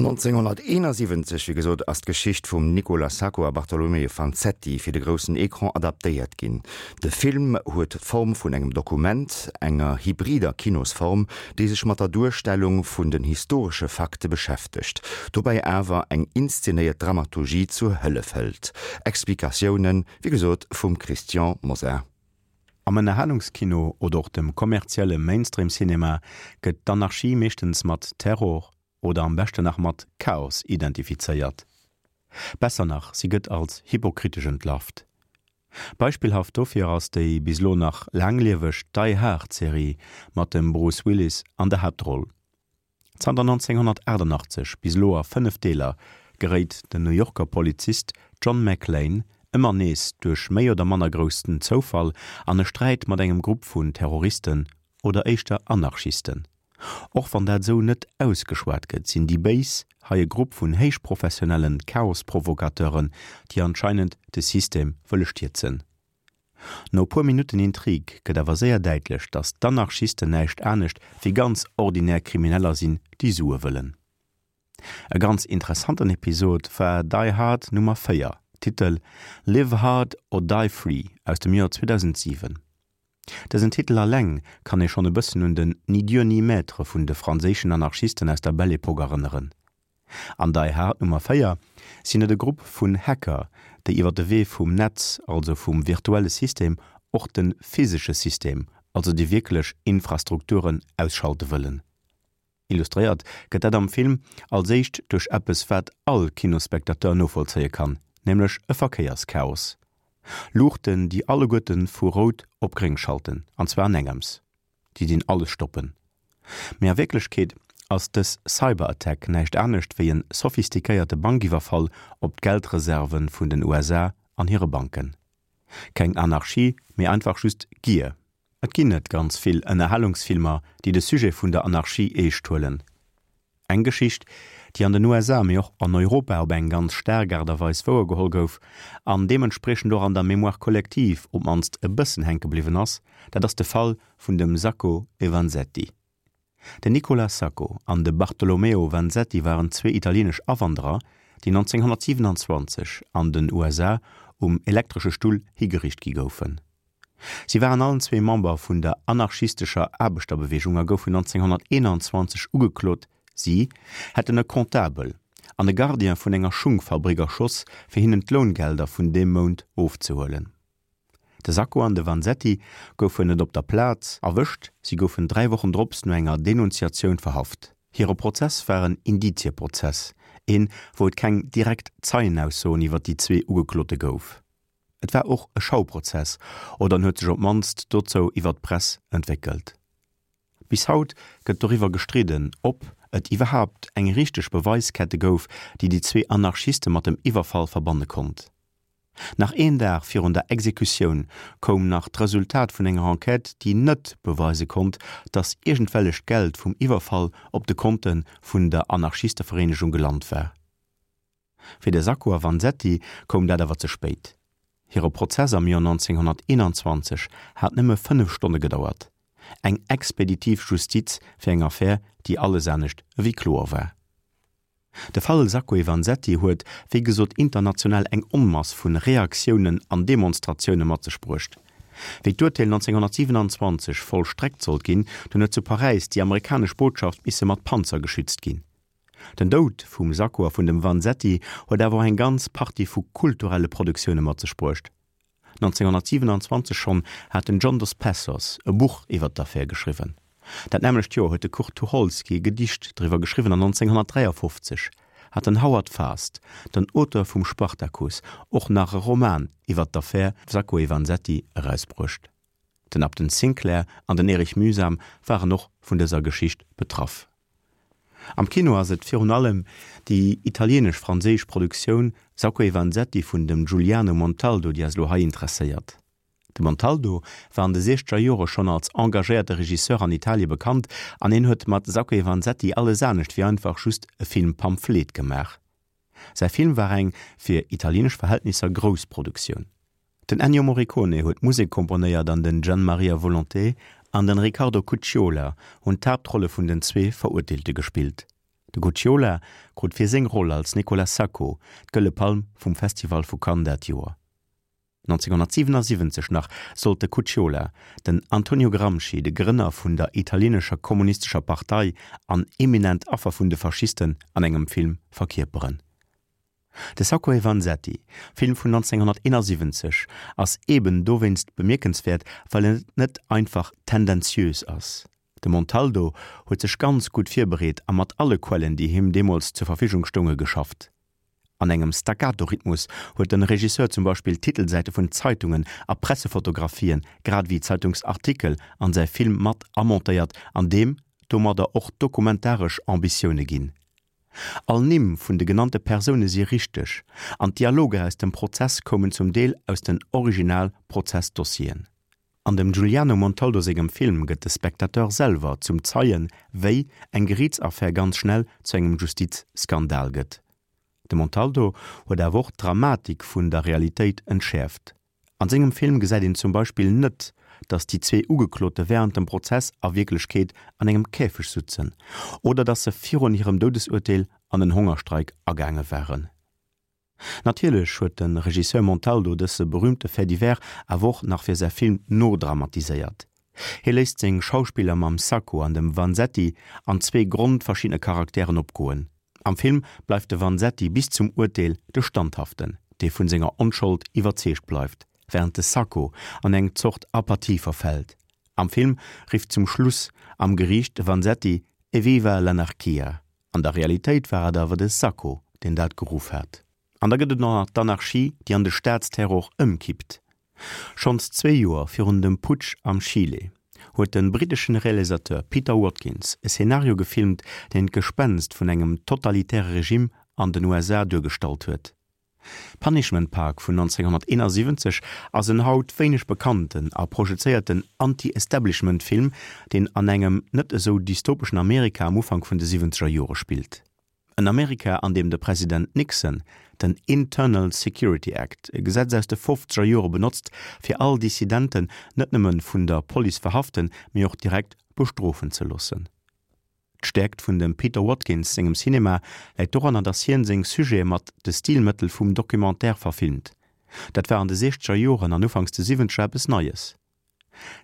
1971, wéi gesot, ass d'Geschicht vum Nicola Sacco a Bartolomeo Vanzetti fir de groussen Ecran adaptéiert ginn. De Film huet d'Form vun engem Dokument, enger hybrider Kinosform, déi sech mat der Duerstellung vun den historesche Fakte beschäftegt, dobäi awer eng inszenéiert Dramaturgie zur Hëllef hëlt. Explikatiounen, wéi gesot, vum Christian Mosar. Am Ënnerhalungskino oder och dem kommerzielle Mainstream-Cinema gëtt d'Anarchie meeschtens mat Terror oder am beschten nach mat Chaos identifizéiert. Besser nach, si gëtt als hypokritesch entlarvt. Beispillhaft dofir ass déi bis elo nach laanglieweg Die Hard Serie mat dem Bruce Willis an der Haaptroll. Zanter 1988 bis elo a 5 Deeler geréit den New Yorker Polizist John McClane ëmmer nees duerch méi oder manner groussen Zoufall an e Sträit mat engem Grupp vun Terroristen oder éischter Anarchisten. Och wann dat esou net ausgeschwat gëtt, sinn déi Béis hei e Grupp vun héichprofessionellen Chaosprovocateuren, déi anscheinend de System wëlle stierzen. No e puer Minutten Intrig gëtt awer séier däitlech, datt d'Anarchisten näischt anescht wéi ganz ordinär Krimineller sinn, déi Sue wëllen. E ganz interessanten Episod war Die Hard Nummer 4, Titel Live Hard or Die Free aus dem Joer 2007. Dësen Titel alleng kann ee schonn e bëssen un den Ni Dieu ni Maître vun de franséischen Anarchisten aus der Belle Epoque erënneren. An Die Hard Nummer 4 sinn et e Grupp vun Hacker, déi iwwer de Wee vum Netz, also vum virtuelle System, och de physesche System, also déi wierklech Infrastrukturen, ausschalte wëllen. Illustréiert gëtt dat am Film als éischt duerch eppes wat all Kinospectateur novollzéie kann, nämlech e Verkéierschaos. Luuchten déi alleguerte vu rout op gréng schalten, an zwar an engems. Déi dinn alles stoppen. Mee a Wierklechkeet ass dës Cyberattack näischt anescht wéi en sophistiquéierte Bankiwwerfall op d'Geldreserve vun den USA an hire Banken. Keng Anarchie, mee einfach just Gier. Et ginn net ganz vill Ënnerhalungsfilmer, déi de Sujet vun der Anarchie eescht huelen. Eng Geschicht, déi an den USA, mee och an Europa op eng ganz staark Aart a Weis wouergeholl gouf an deementspriechend och an der Mémoire collective op d'mannst e bëssen hänke bliwwen ass, dat ass de Fall vun dem Sacco e Vanzetti. Den Nicola Sacco an de Bartolomeo Vanzetti waren zwee italieenesch Awanderer, déi 1927 an den USA um elektresche Stull higeriicht gi goufen. Si waren allen zwee Member vun der anarchistescher Aarbechterbeweegung a goufen 1921 ugeklot, si hätten e Comptabel an e Gardien vun enger Schungfabrik erschoss, fir hinnen d'Loungelder vun deem Mount ofzehuelen. De Sacco an de Vanzetti goufen net op der Plaz erwëscht, si goufen 3 Wochen drops no enger Denunziatioun verhaft. Hire Prozess war en Indizieprozess, een, wou et keng direkt Zeienaussoen iwwer déi zwee Ugeklote gouf. Et war och e Schauprozess, oder en huet sech op d'mannst dozou iwwer d'Press entwéckelt. Bis haut gëtt doriwwer gestridden, ob et iwwerhaapt eng richteg Beweiskette gouf, déi déi zwee Anarchiste mat dem Iwwerfall verbanne konnt. Nach een Dag virun der Exekutioun koum nach d'Resultat vun enger Enquête, déi net beweise konnt, datt iergendwellecht Geld vum Iwwerfall op de Konte vun der Anarchistevereenegung gelant war. Fir de Sacco a Vanzetti koum dat awer ze spéit. Hire Prozess am Joer 1921 hat nëmme 5 Stonne gedauert. Eng expeditiv Justiz fir eng Affär, déi alles anescht ewéi kloer war. De Fall Sacco e Vanzetti huet, wéi gesot, international eng Onmass vu Reaktiounen an Demonstratioune mat sech bruecht. Wéi d'Urteel 1927 vollstreckt sollt ginn, dunn huet zu Paräis déi amerikanesch Botschaft misse mat Panzer geschützt ginn. Den Doud vum Sacco a vun dem Vanzetti huet awer och eng ganz Partie vu kulturelle Produktioune mat sech bruecht. 1927 schonn hat den John Dos Passos e Buch iwwer d'Affär geschriwwen. Dat nämmlecht Joer huet de Kurt Tucholsky e Gedicht driwwer geschriwwen an 1953 hat den Howard Fast, den Auteur vum Spartacus, och nach e Roman iwwer d'Affär Sacco e Vanzetti erausbruecht. Den Upton Sinclair an den Erich Mühsam waren och vun dëser Geschicht betraff. Am Kino ass et virun allem déi italieenesch-franséisch Produktioun Sacco e Vanzetti vun dem Giuliano Montaldo, déi eis elo hei interesséiert. De Montaldo war an de siechzeger Jore schonn als engagéierte Regisseur an Italie bekannt an hien huet mat Sacco e Vanzetti alles anescht wéi einfach just e Film-Pamphlet gemaach. Säi Film war eng, fir italieenesch Verhältnisser, grouss Produktioun. Den Ennio Morricone huet d'Musek komponéiert an den Gian Maria Volonté an den Riccardo Cucciola hunn d'Haaptrolle vun den zwee Verurteelte gespillt. De Gucciola krut fir seng Roll als Nicola Sacco d'Gëlle Palm vum Festival vu Cannes dat Joer. 1977 nach sollt de Cucciola den Antonio Gramsci, de Grënner vun der italieenescher kommunistescher Partei an eminent Affer vun de Faschisten, an engem Film verkierperen. De Sacco e Vanzetti, Film vun 1971, ass eben dowéinst bemierkenswäert, well en net einfach tendenziös ass. De Montaldo huet sech ganz gutt virbereet a mat alle Quellen, déi him deemools zur Verfügung stounge, geschafft. An engem Staccato-Rhythmus huet de Regisseur zum Beispill Titelsäite vun Zeitungen a Pressefotografien, grad ewéi Zeitungsartikel an säi Film mat amontéiert an deem domadder och dokumentaresch Ambitioune ginn. All Nimm vun de genannte Persoune si richteg an d'Dialoger aus dem Prozess koumen zum Deel aus den Original-Prozessdossieren. An dem Giuliano Montaldo sengem Film gëtt de Spectateur selwer zum Zeien, wéi eng Geriitsaffär ganz schnell zu engem Justizskandal gëtt. De Montaldo huet awer och d'Dramatik vun der Realitéit entschäerft. An sengem Film gesäit een zum Beispill net, datt déi zwee Ugeklote wärend dem Prozess a Wierklechkeet an engem Käfeg sutzen oder datt se virun hirem Doudesurteel an en Hongerstreik agaange waren. Natierlech huet de Regisseur Montaldo dësse berüümte Fait divers awer och nach fir säi Film nodramatiséiert. Hie léisst seng Schauspiller mam Sacco an dem Vanzetti an zwee grondverschiddene Charakteren opgoen. Am Film bleift de Vanzetti bis zum Urteel de Standhaften, dee vun senger Onschold iwwerzeegt bleift, wärend de Sacco an eng Zort Apathie verfält. Am Film rifft zum Schluss am Geriicht de Vanzetti Evviva l'anarchia! An der Realitéit war et awer de Sacco, deen dat geruff hat. An da gëtt et och nach d'Anarchie, déi an de Staatsterror ëmkippt. Schonns zwee Joer virun dem Putsch am Chile huet de britteschen Realisateur Peter Watkins e Szenario gefilmt, deen d'Gespenst vun engem totalitäre Regime an den USA duergestallt huet. Punishment Park vun 1971 ass en haut wéineg bekannten a projezéierten Anti-Establishment-Film, deen an engem net esou dystopeschen Amerika am Ufank vun de siwwenzeger Jore spillt. En Amerika, an deem de President Nixon den Internal Security Act, e Gesetz aus de fofzeger Jore benotzt, fir all Dissidenten net nëmme vun der Police verhaften, mee och direkt bestrofen ze loossen. D'Stäerkt vun dem Peter Watkins sengem Cinema läit doranner, datt hien seng Sujete mat de Stilmëttel vum Documentaire verfilmt. Dat war an de siechzeger Joren an ufanks de siwwenzeger eppes Neies.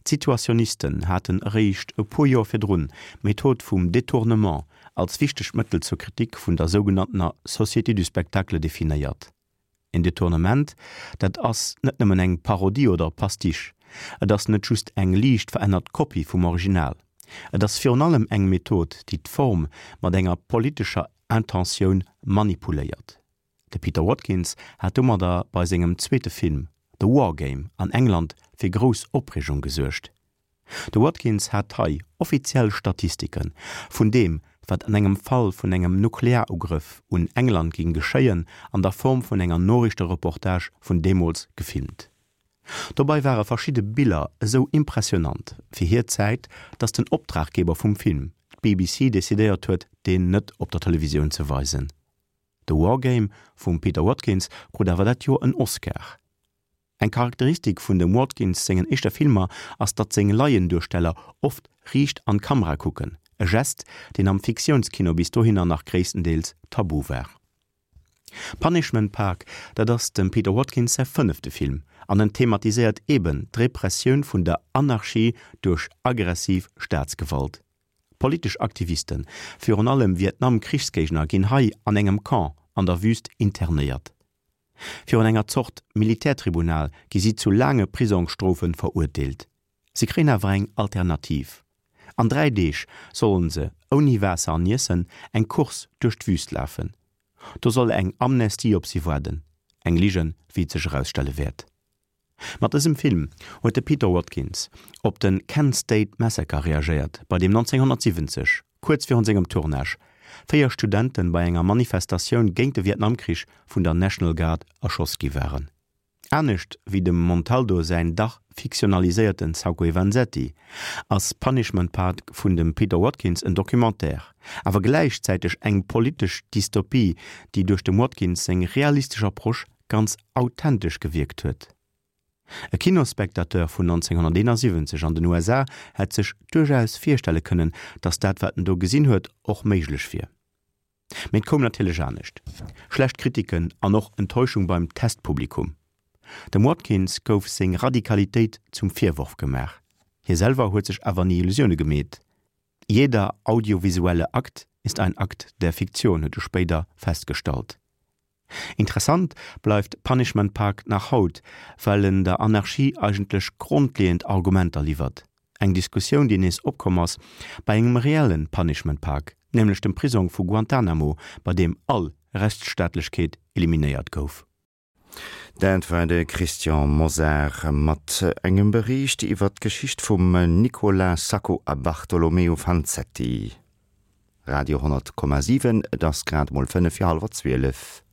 D'Situationisten haten eréischt e puer Joer virdrun d'Method vum Détournement als wichtegt Mëttel zur Kritik vun der sougenanntener Société du spectacle definéiert. En Detournement, dat ass net nëmmen eng Parodie oder e Pastiche, et ass net just eng liicht verännert Kopie vum Original, et ass virun allem eng Method, déi d'Form mat enger politescher Intentioun manipuléiert. De Peter Watkins hat domadder bei sengem zweete Film The War Game an England fir grouss Opreegung gesuergt. De Watkins hat hei offiziell Statistike vun deem, wat an engem Fall vun engem Nuklearugrëff un England géing geschéien, an der Form vun enger Noriichtereportage vun deemools gefilmt. Dobei ware verschidde Biller esou impressionant fir hir Zäit, datt den Optraggeber vum Film, d'BBC, decidéiert huet, deen net op der Televisioun ze weisen. The War Game vum Peter Watkins krut awer dat Joer en Oscar. Eng Charakteristik vun dem Watkins sengen éischter Filmer ass datt seng Laienduersteller oft riicht an d'Kamera kucken, e Gest deen am Fiktiounskino bis dohinner nach gréisstendeels tabu war. Punishment Park, dat ass dem Peter Watkins säi fënnefte Film an en thematiséiert eben d'Repressioun vun der Anarchie duerch aggressiv Staatsgewalt. Politesch Aktivisten, virun allem Vietnam-Krichsgéigner ginn hei an engem Camp an der Wüst internéiert. Virun enger Zort Militärtribunal gi si zu laange Prisongsstrofe verurteelt. Si kréien awer eng Alternativ, An 3 Deeg sollen se, ouni Waasser an Iessen, eng Course duerch d'Wüst lafen. Do soll eng Amnestie op si waarden. Eng Ligen, wéi et sech erausstelle wäert. Mat dësem Film huet de Peter Watkins op de Kent State Massacre reagéiert, bei deem 1970, kuerz virun sengem Tournage, 4 Studente bei enger Manifestatioun géint de Vietnamkrich vun der National Guard erschoss gi waren. Anescht wéi dem Montaldo säin dach fiktionaliséierten Sacco e Vanzetti ass Punishment Park vun dem Peter Watkins en Documentaire, awer gläichzäiteg eng politesch Dystopie, déi duerch dem Watkins seng realistesch Approche ganz authentesch gewierkt huet. E Kinosspectateur vun 1971 an den USA hätt sech duerchaus virstelle kënnen, datt dat wat en do gesinn huet och méiglech wier. Mee et koum natierlech anescht, schlecht Kritiken an och Enttäuschung beim Testpublikum. Dem Watkins gouf seng Radikalitéit zum Virworf gemaach. Hie selwer huet sech awer ni Illusioune gemeet. Jeder audiovisuelle Akt ist ein Akt der Fiktion, huet e spéider festgestallt. Interessant bleift Punishment Park nach haut, well en der Anarchie eigentlech grondleeënd Argumenter liwwert. Eng Diskussioun, déi nees opkomm ass bei engem reelle Punishment Park, nämlech dem Prisong vu Guantanamo, bei deem all Rechtsstaatlechkeet eliminéiert gouf. Dat war de Christian Mosar mat engem Bericht iwwer d'Geschicht vum Nicola Sacco a Bartolomeo Vanzetti. Radio 10,7, et ass grad emol 11:25.